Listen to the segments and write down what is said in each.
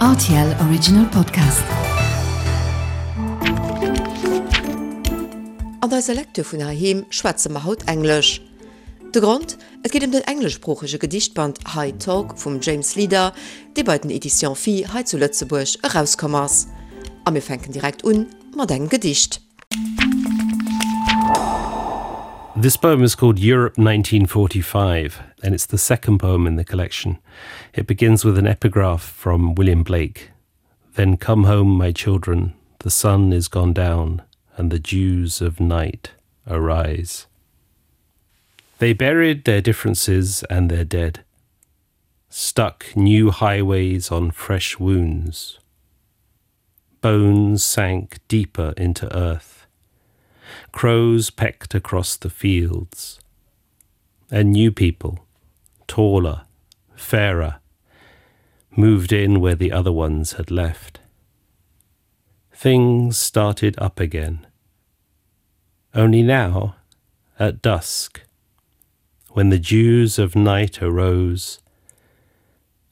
RTL Original Podcast. An eiser Lecture vun heiheem schwätze mer haut Englesch. De Grond, Et geet ëm den engleschsproochege Gedichtband High Talk vum James Leader, dee bei den Editions Phi hei zu Lëtzebuerg erauskomm ass. A mir fänken direkt un mat engem Gedicht. This poem is called Europe 1945 and it's the second poem in the collection. It begins with an epigraph from William Blake. Then come home, my children, the sun is gone down and the dews of night arise. They buried their differences and their dead, stuck new highways on fresh wounds. Bones sank deeper into earth. Crows pecked across the fields. And new people, taller, fairer, moved in where the other ones had left. Things started up again. Only now, at dusk, when the dews of night arose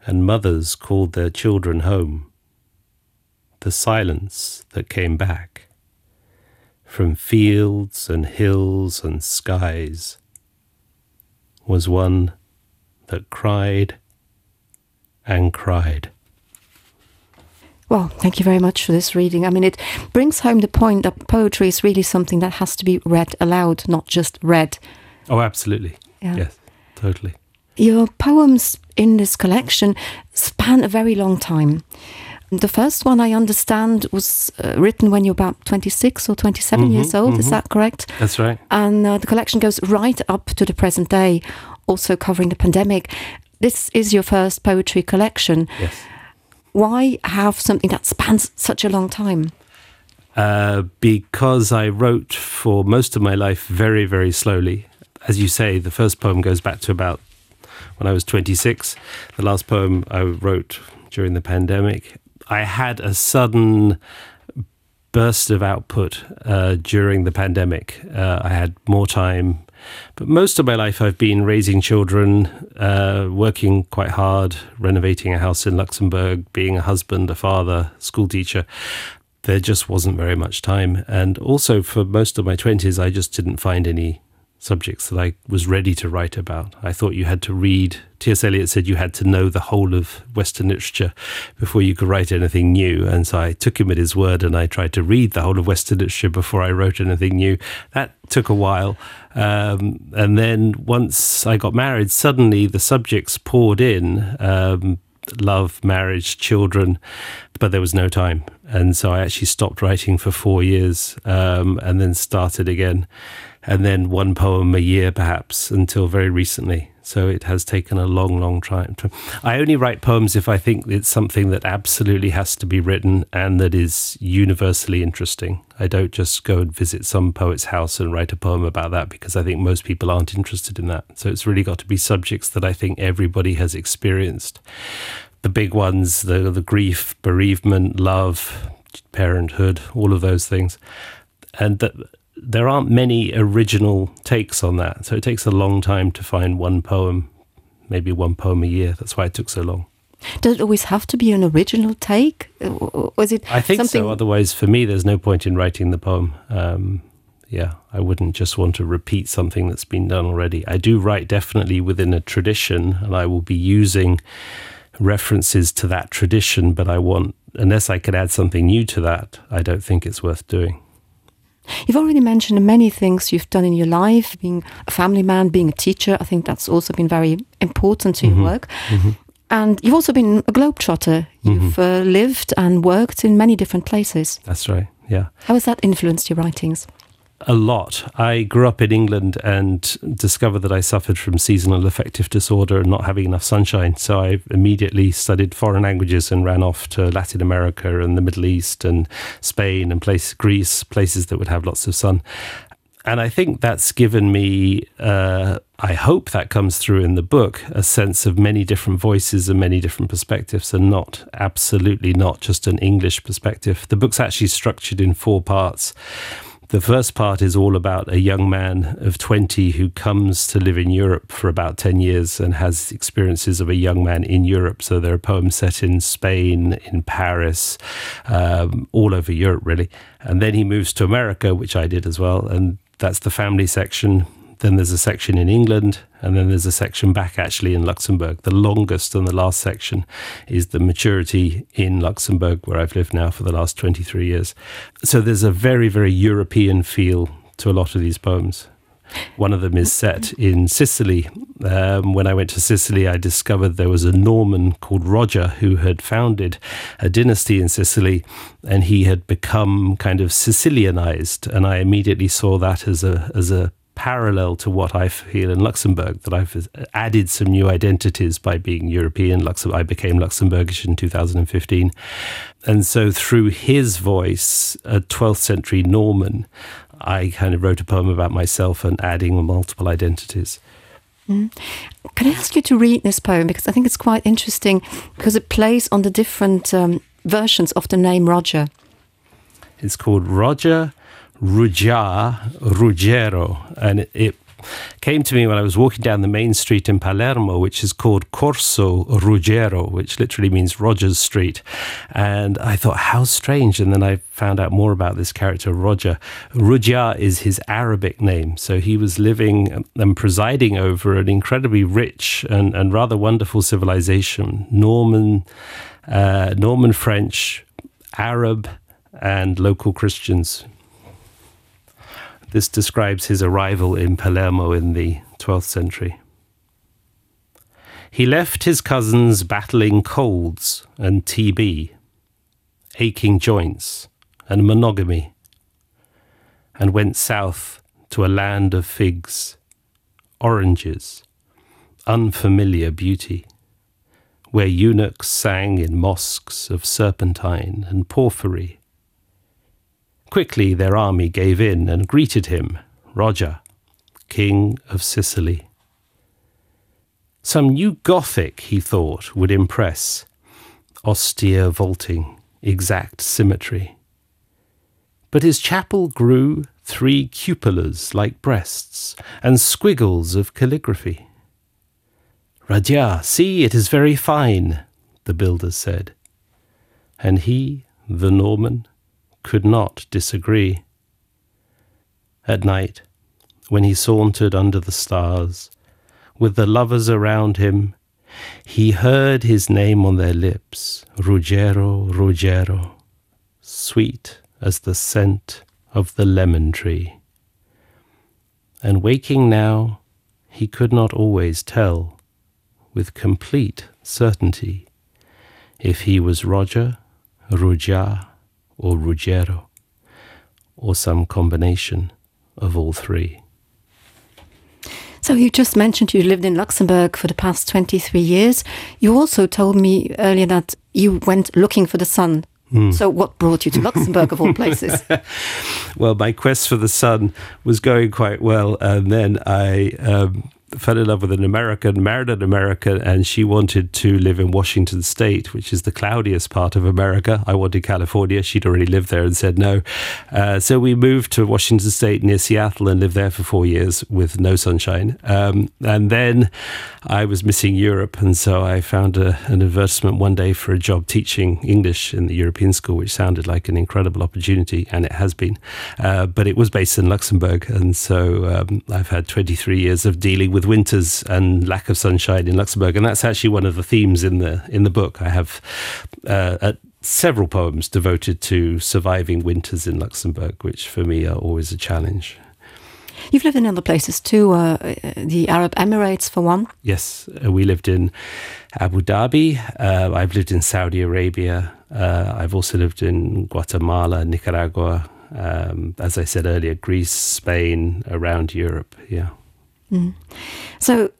and mothers called their children home, the silence that came back from fields and hills and skies was one that cried and cried. Well, thank you very much for this reading. I mean, it brings home the point that poetry is really something that has to be read aloud, not just read. Oh, absolutely. Yeah. Yes, totally. Your poems in this collection span a very long time. The first one I understand was uh, written when you're about 26 or 27 mm -hmm, years old, mm -hmm. is mm-hmm. that correct? That's right. And uh, the collection goes right up to the present day, also covering the pandemic. This is your first poetry collection. Yes. Why have something that spans such a long time? Uh, because I wrote for most of my life very, very slowly. As you say, the first poem goes back to about when I was 26. The last poem I wrote during the pandemic. I had a sudden burst of output uh, during the pandemic. Uh, I had more time. But most of my life I've been raising children, uh, working quite hard, renovating a house in Luxembourg, being a husband, a father, school teacher. There just wasn't very much time. And also for most of my 20s, I just didn't find any subjects that I was ready to write about. I thought you had to read T.S. Eliot said you had to know the whole of Western literature before you could write anything new. And so I took him at his word and I tried to read the whole of Western literature before I wrote anything new. That took a while. Um, and then once I got married, suddenly the subjects poured in. Um, love, marriage, children, but there was no time. And so I actually stopped writing for four years um, and then started again. And then one poem a year, perhaps, until very recently. So it has taken a long, long time. To, I only write poems if I think it's something that absolutely has to be written and that is universally interesting. I don't just go and visit some poet's house and write a poem about that because I think most people aren't interested in that. So it's really got to be subjects that I think everybody has experienced. The big ones, the, the grief, bereavement, love, parenthood, all of those things. And that there aren't many original takes on that. So it takes a long time to find one poem, maybe one poem a year. That's why it took so long. Does it always have to be an original take? Was it I think so. Otherwise, for me, there's no point in writing the poem. Um, yeah, I wouldn't just want to repeat something that's been done already. I do write definitely within a tradition, and I will be using references to that tradition, but I want unless I could add something new to that, I don't think it's worth doing. You've already mentioned many things you've done in your life, being a family man, being a teacher. I think that's also been very important to mm -hmm. your mm-hmm. work. Mm -hmm. And you've also been a globetrotter. You've mm -hmm. uh, lived and worked in many different places. That's right. Yeah. How has that influenced your writings? A lot. I grew up in England and discovered that I suffered from seasonal affective disorder and not having enough sunshine. So I immediately studied foreign languages and ran off to Latin America and the Middle East and Spain and place Greece, places that would have lots of sun. And I think that's given me, uh, I hope that comes through in the book, a sense of many different voices and many different perspectives, and not absolutely not just an English perspective. The book's actually structured in four parts. The first part is all about a young man of 20 who comes to live in Europe for about 10 years and has experiences of a young man in Europe. So there are poems set in Spain, in Paris, um, all over Europe really. And then he moves to America, which I did as well. And that's the family section. Then there's a section in England, and then there's a section back actually in Luxembourg. The longest and the last section is the maturity in Luxembourg, where I've lived now for the last 23 years. So there's a very, very European feel to a lot of these poems. One of them is set in Sicily. Um, when I went to Sicily, I discovered there was a Norman called Roger who had founded a dynasty in Sicily and he had become kind of Sicilianized. And I immediately saw that as a, as a parallel to what I feel in Luxembourg, that I've added some new identities by being European. Luxem I became Luxembourgish in 2015. And so through his voice, a 12th century Norman, I kind of wrote a poem about myself and adding multiple identities. Mm. Can I ask you to read this poem? Because I think it's quite interesting because it plays on the different um, versions of the name Roger. It's called Roger Ruja Ruggiero, and it, it came to me when I was walking down the main street in Palermo, which is called Corso Ruggiero, which literally means Rogers Street. And I thought, how strange. And then I found out more about this character, Roger. Ruggia is his Arabic name. So he was living and presiding over an incredibly rich and, and rather wonderful civilization, Norman, uh, Norman French, Arab, and local Christians. This describes his arrival in Palermo in the 12th century. He left his cousins battling colds and TB, aching joints and monogamy, and went south to a land of figs, oranges, unfamiliar beauty, where eunuchs sang in mosques of serpentine and porphyry. Quickly their army gave in and greeted him, Roger, King of Sicily. Some new Gothic, he thought, would impress, austere vaulting, exact symmetry. But his chapel grew three cupolas like breasts and squiggles of calligraphy. Radia, see, it is very fine, the builder said. And he, the Norman, could not disagree. At night, when he sauntered under the stars, with the lovers around him, he heard his name on their lips, Ruggiero, Ruggiero, sweet as the scent of the lemon tree. And waking now, he could not always tell, with complete certainty, if he was Roger, Ruggia, or Ruggiero, or some combination of all three. So you just mentioned you lived in Luxembourg for the past 23 years. You also told me earlier that you went looking for the sun. Mm. So what brought you to Luxembourg of all places? well, my quest for the sun was going quite well, and then I um, fell in love with an American, married an American, and she wanted to live in Washington State, which is the cloudiest part of America. I wanted California. She'd already lived there and said no. Uh, so we moved to Washington State near Seattle and lived there for four years with no sunshine. Um, and then I was missing Europe, and so I found a, an advertisement one day for a job teaching English in the European school, which sounded like an incredible opportunity, and it has been. Uh, but it was based in Luxembourg, and so um, I've had 23 years of dealing with winters and lack of sunshine in Luxembourg, and that's actually one of the themes in the in the book. I have uh, at several poems devoted to surviving winters in Luxembourg, which for me are always a challenge. You've lived in other places too, uh, the Arab Emirates for one. Yes, uh, we lived in Abu Dhabi. Uh, I've lived in Saudi Arabia. Uh, I've also lived in Guatemala, Nicaragua, um, as I said earlier, Greece, Spain, around Europe. Yeah. Mm. So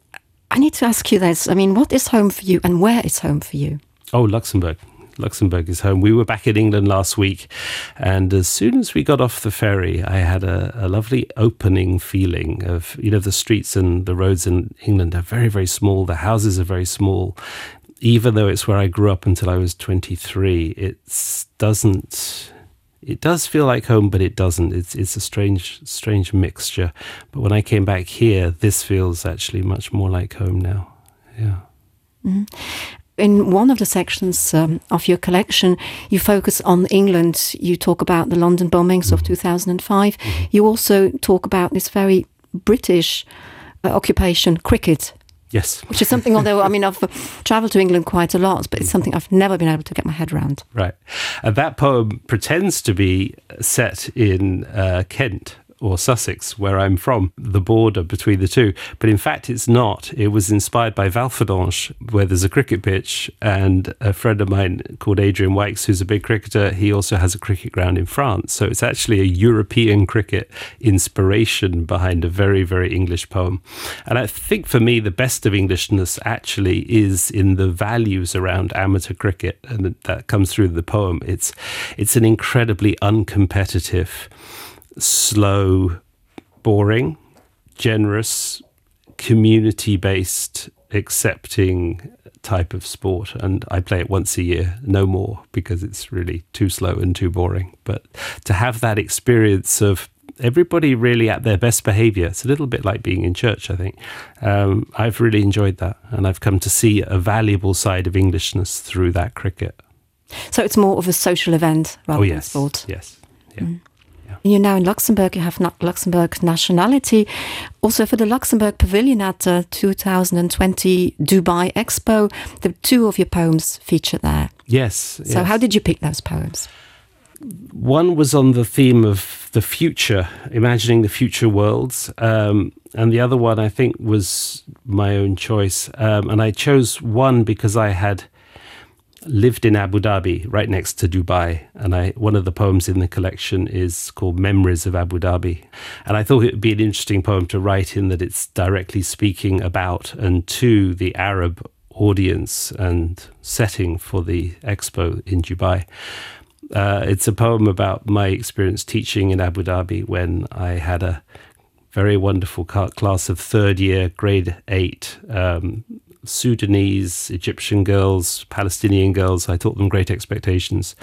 I need to ask you this. I mean, what is home for you and where is home for you? Oh, Luxembourg. Luxembourg is home. We were back in England last week, and as soon as we got off the ferry, I had a, a lovely opening feeling of you know the streets and the roads in England are very very small. The houses are very small. Even though it's where I grew up until I was 23, it doesn't. It does feel like home, but it doesn't. It's, it's a strange, strange mixture. But when I came back here, this feels actually much more like home now. Yeah. Mm -hmm. In one of the sections um, of your collection, you focus on England. You talk about the London bombings mm -hmm. of 2005. Mm -hmm. You also talk about this very British uh, occupation, cricket. Yes. Which is something, although I mean, I've traveled to England quite a lot, but it's something I've never been able to get my head around. Right. And that poem pretends to be set in uh, Kent or Sussex, where I'm from, the border between the two. But in fact, it's not. It was inspired by Valfordonge, where there's a cricket pitch, and a friend of mine called Adrian Wykes, who's a big cricketer, he also has a cricket ground in France. So it's actually a European cricket inspiration behind a very, very English poem. And I think for me, the best of Englishness actually is in the values around amateur cricket, and that comes through the poem. It's, it's an incredibly uncompetitive, slow, boring, generous, community-based, accepting type of sport and I play it once a year, no more, because it's really too slow and too boring. But to have that experience of everybody really at their best behavior, it's a little bit like being in church, I think. Um, I've really enjoyed that and I've come to see a valuable side of Englishness through that cricket. So it's more of a social event rather oh, yes. than sport. Yes. Yeah. Mm. Yeah. You're now in Luxembourg, you have not Luxembourg nationality. Also for the Luxembourg Pavilion at the 2020 Dubai Expo, the two of your poems featured there. Yes. So yes. how did you pick those poems? One was on the theme of the future, imagining the future worlds. Um, and the other one I think was my own choice. Um, and I chose one because I had lived in Abu Dhabi, right next to Dubai. And I, one of the poems in the collection is called Memories of Abu Dhabi. And I thought it would be an interesting poem to write in that it's directly speaking about and to the Arab audience and setting for the expo in Dubai. Uh, it's a poem about my experience teaching in Abu Dhabi when I had a very wonderful class of third year grade 8 um, Sudanese, Egyptian girls, Palestinian girls. I taught them great expectations.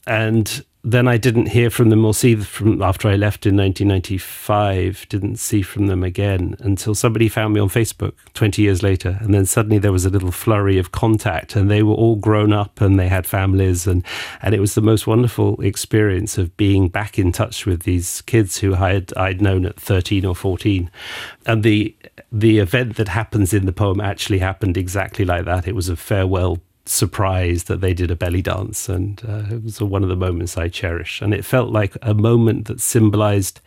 And then I didn't hear from them or see from after I left in 1995, didn't see from them again until somebody found me on Facebook 20 years later. And then suddenly there was a little flurry of contact and they were all grown up and they had families. And, and it was the most wonderful experience of being back in touch with these kids who I had, I'd known at 13 or 14. And the, the event that happens in the poem actually happened exactly like that. It was a farewell surprise that they did a belly dance and uh, it was one of the moments I cherish and it felt like a moment that symbolized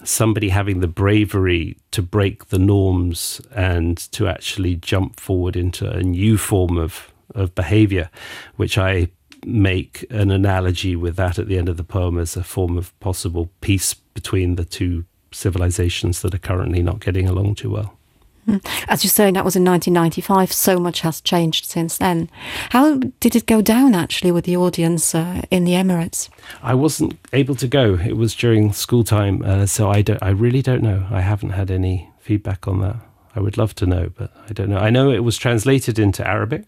somebody having the bravery to break the norms and to actually jump forward into a new form of of behavior which I make an analogy with that at the end of the poem as a form of possible peace between the two civilizations that are currently not getting along too well. Hmm. As you say, that was in 1995. So much has changed since then. How did it go down actually with the audience uh, in the Emirates? I wasn't able to go. It was during school time, uh, so I, don't, I really don't know. I haven't had any feedback on that. I would love to know, but I don't know. I know it was translated into Arabic.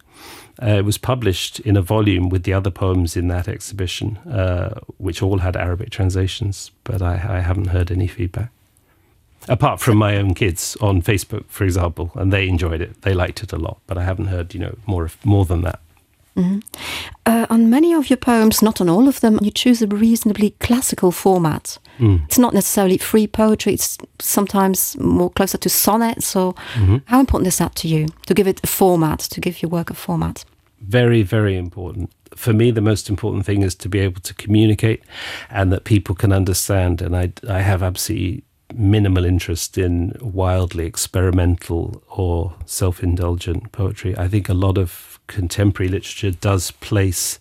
Uh, it was published in a volume with the other poems in that exhibition, uh, which all had Arabic translations, but I, I haven't heard any feedback apart from my own kids on Facebook, for example, and they enjoyed it. They liked it a lot, but I haven't heard you know more of, more than that. Mm -hmm. uh, on many of your poems, not on all of them, you choose a reasonably classical format. Mm. It's not necessarily free poetry, it's sometimes more closer to sonnets. So mm -hmm. how important is that to you, to give it a format, to give your work a format? Very, very important. For me, the most important thing is to be able to communicate and that people can understand. And I, I have absolutely minimal interest in wildly experimental or self-indulgent poetry. I think a lot of contemporary literature does place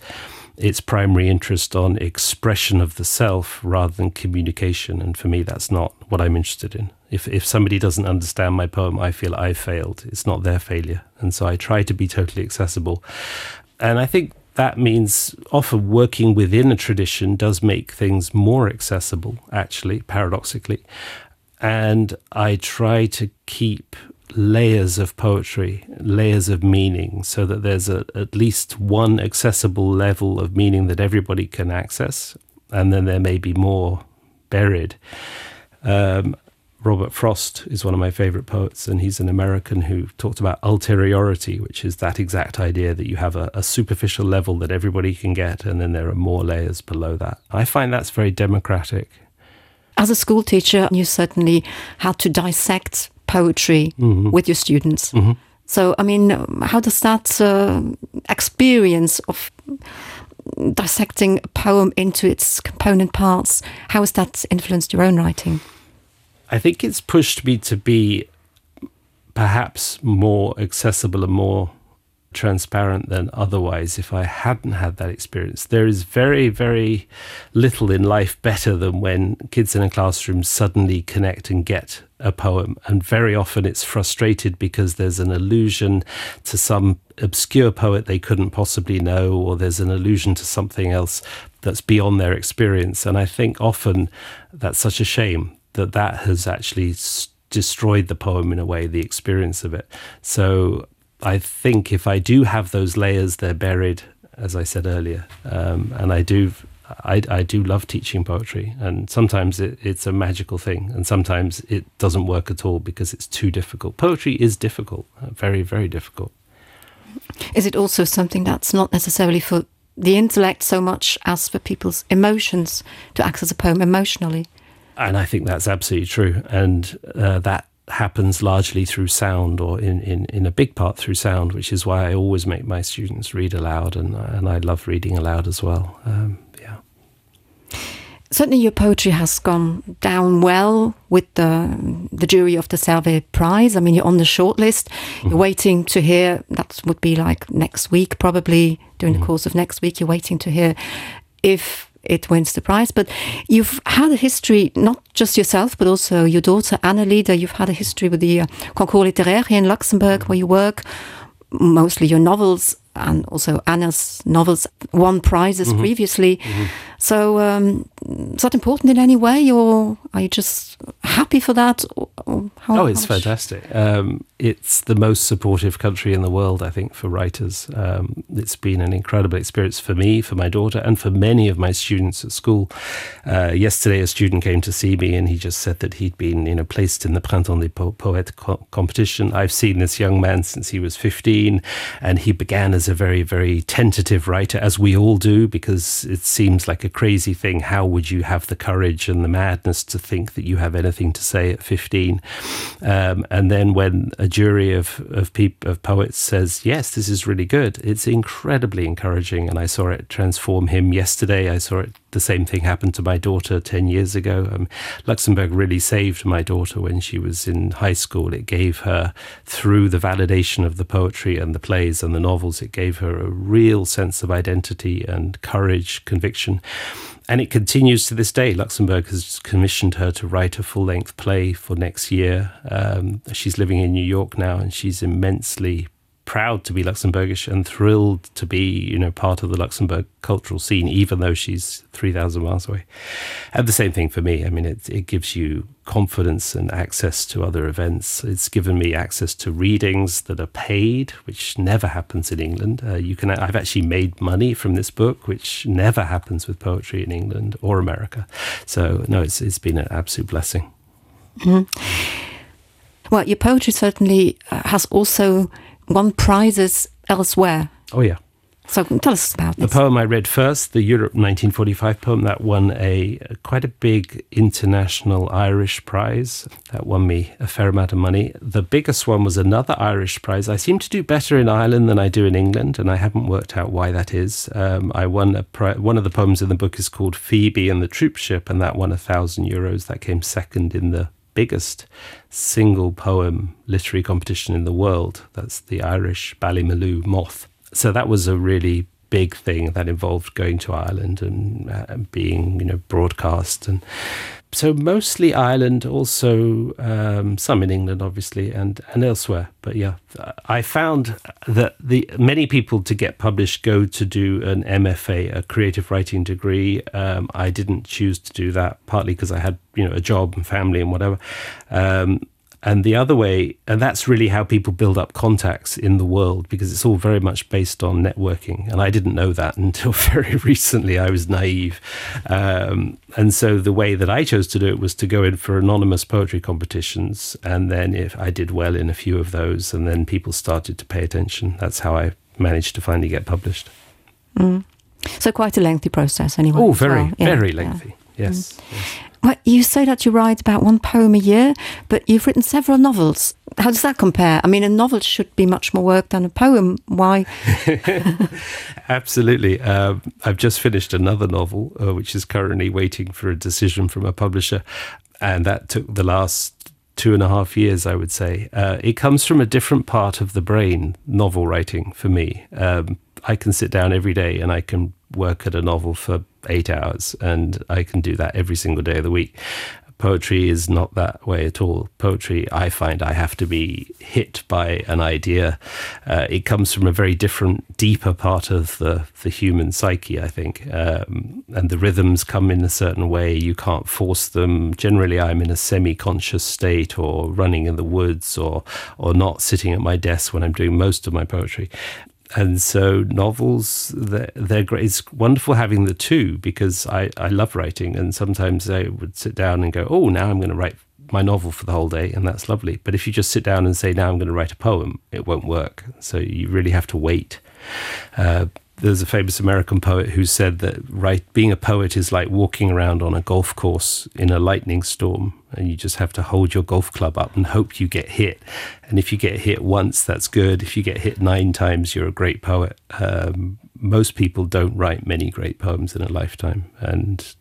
its primary interest on expression of the self rather than communication and for me that's not what I'm interested in. If, if somebody doesn't understand my poem, I feel I failed. It's not their failure. And so I try to be totally accessible. And I think that means often working within a tradition does make things more accessible, actually, paradoxically and I try to keep layers of poetry, layers of meaning, so that there's a, at least one accessible level of meaning that everybody can access. And then there may be more buried. Um, Robert Frost is one of my favorite poets, and he's an American who talked about ulteriority, which is that exact idea that you have a, a superficial level that everybody can get, and then there are more layers below that. I find that's very democratic. As a school teacher, you certainly had to dissect poetry mm -hmm. with your students. Mm -hmm. So I mean, how does that uh, experience of dissecting a poem into its component parts, how has that influenced your own writing? I think it's pushed me to be perhaps more accessible and more transparent than otherwise if I hadn't had that experience. There is very, very little in life better than when kids in a classroom suddenly connect and get a poem. And very often it's frustrated because there's an allusion to some obscure poet they couldn't possibly know, or there's an allusion to something else that's beyond their experience. And I think often that's such a shame that that has actually destroyed the poem in a way, the experience of it. So I think if I do have those layers, they're buried, as I said earlier. Um, and I do I, I do love teaching poetry and sometimes it, it's a magical thing and sometimes it doesn't work at all because it's too difficult. Poetry is difficult, uh, very, very difficult. Is it also something that's not necessarily for the intellect so much as for people's emotions to access a poem emotionally? And I think that's absolutely true. And uh, that happens largely through sound or in, in, in a big part through sound, which is why I always make my students read aloud and, and I love reading aloud as well. Um, yeah. Certainly your poetry has gone down well with the, the jury of the Servais Prize. I mean, you're on the shortlist. Mm -hmm. You're waiting to hear, that would be like next week, probably during mm -hmm. the mm-hmm. course of next week, you're waiting to hear if it wins the prize. But you've had a history, not just yourself, but also your daughter, Anna Lieder. You've had a history with the uh, Concours Littéraire here in Luxembourg, where you work mostly your novels and also Anna's novels won prizes mm -hmm. previously. Mm -hmm. So um, is that important in any way or are you just happy for that? Or, or how, oh, it's how fantastic. Um, it's the most supportive country in the world, I think, for writers. Um, it's been an incredible experience for me, for my daughter, and for many of my students at school. Uh, yesterday, a student came to see me and he just said that he'd been you know, placed in the Printemps des po Poètes co competition. I've seen this young man since he was 15 and he began as a very, very tentative writer, as we all do, because it seems like a crazy thing. How would you have the courage and the madness to think that you have anything to say at 15? Um, and then when a jury of, of, peop of poets says, yes, this is really good, it's incredibly encouraging. And I saw it transform him yesterday. I saw it the same thing happened to my daughter 10 years ago. Um, Luxembourg really saved my daughter when she was in high school. It gave her, through the validation of the poetry and the plays and the novels, it gave her a real sense of identity and courage, conviction. And it continues to this day. Luxembourg has commissioned her to write a full-length play for next year. Um, she's living in New York now and she's immensely proud to be Luxembourgish and thrilled to be you know part of the Luxembourg cultural scene even though she's 3000 miles away and the same thing for me I mean it, it gives you confidence and access to other events it's given me access to readings that are paid which never happens in England uh, you can I've actually made money from this book which never happens with poetry in England or America so no it's it's been an absolute blessing mm -hmm. well your poetry certainly uh, has also won prizes elsewhere. Oh yeah. So tell us about the this. poem I read first, the Europe 1945 poem that won a, a quite a big international Irish prize that won me a fair amount of money. The biggest one was another Irish prize. I seem to do better in Ireland than I do in England, and I haven't worked out why that is. Um, I won a one of the poems in the book is called Phoebe and the Troopship, and that won a thousand euros. That came second in the biggest single poem literary competition in the world. That's the Irish Ballymaloo Moth. So that was a really big thing that involved going to Ireland and uh, being you know broadcast and so mostly Ireland also um, some in England obviously and and elsewhere but yeah I found that the many people to get published go to do an MFA a creative writing degree um, I didn't choose to do that partly because I had you know a job and family and whatever um, And the other way, and that's really how people build up contacts in the world because it's all very much based on networking. And I didn't know that until very recently. I was naive. Um, and so the way that I chose to do it was to go in for anonymous poetry competitions. And then if I did well in a few of those, and then people started to pay attention, that's how I managed to finally get published. Mm. So quite a lengthy process anyway. Oh, very, well. yeah. very lengthy. Yeah. Yes. Mm. yes. Well, you say that you write about one poem a year, but you've written several novels. How does that compare? I mean, a novel should be much more work than a poem. Why? Absolutely. Um, I've just finished another novel, uh, which is currently waiting for a decision from a publisher. And that took the last 2.5 years, I would say. Uh, it comes from a different part of the brain, novel writing for me. Um, I can sit down every day and I can work at a novel for 8 hours and I can do that every single day of the week. Poetry is not that way at all. Poetry, I find I have to be hit by an idea. Uh, it comes from a very different, deeper part of the, the human psyche, I think. Um, and the rhythms come in a certain way. You can't force them. Generally, I'm in a semi-conscious state or running in the woods or, or not sitting at my desk when I'm doing most of my poetry and so novels they're, they're great it's wonderful having the two because I, I love writing and sometimes I would sit down and go oh now I'm going to write my novel for the whole day and that's lovely but if you just sit down and say now I'm going to write a poem it won't work so you really have to wait uh, there's a famous American poet who said that right being a poet is like walking around on a golf course in a lightning storm and you just have to hold your golf club up and hope you get hit and if you get hit once that's good if you get hit nine times you're a great poet um, most people don't write many great poems in a lifetime and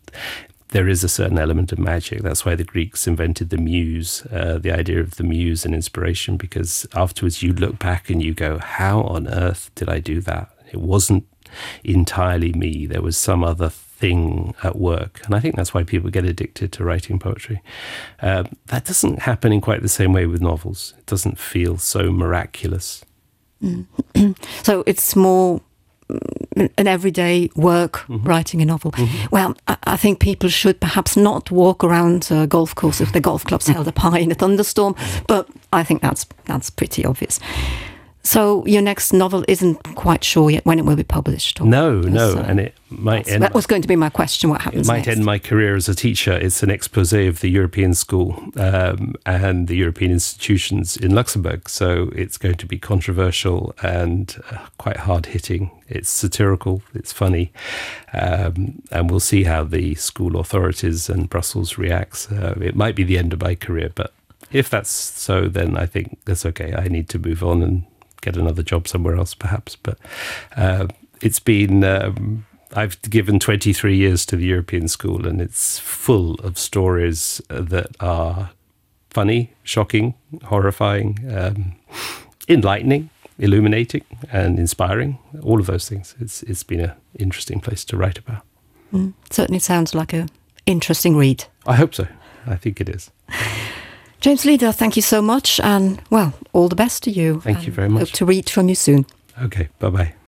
there is a certain element of magic that's why the Greeks invented the muse uh, the idea of the muse and inspiration because afterwards you look back and you go how on earth did I do that it wasn't entirely me there was some other thing at work and I think that's why people get addicted to writing poetry uh, that doesn't happen in quite the same way with novels it doesn't feel so miraculous mm. so it's more mm, an everyday work mm -hmm. writing a novel mm -hmm. well I, I think people should perhaps not walk around a golf course if the golf club's held up high in a thunderstorm but I think that's that's pretty obvious So your next novel isn't quite sure yet when it will be published. Or no, no, so and it might end that was going to be my question what happens it might next. end my career as a teacher. It's an expose of the European school um, and the European institutions in Luxembourg. So it's going to be controversial and uh, quite hard hitting. It's satirical, it's funny, um, and we'll see how the school authorities and Brussels reacts. Uh, it might be the end of my career, but if that's so, then I think that's okay. I need to move on and get another job somewhere else perhaps but uh, it's been um, I've given 23 years to the European school and it's full of stories that are funny shocking horrifying um, enlightening illuminating and inspiring all of those things it's it's been a interesting place to write about mm, certainly sounds like a interesting read I hope so I think it is James Leader, thank you so much and well, all the best to you. Thank you very much. Hope to read from you soon. Okay, bye bye.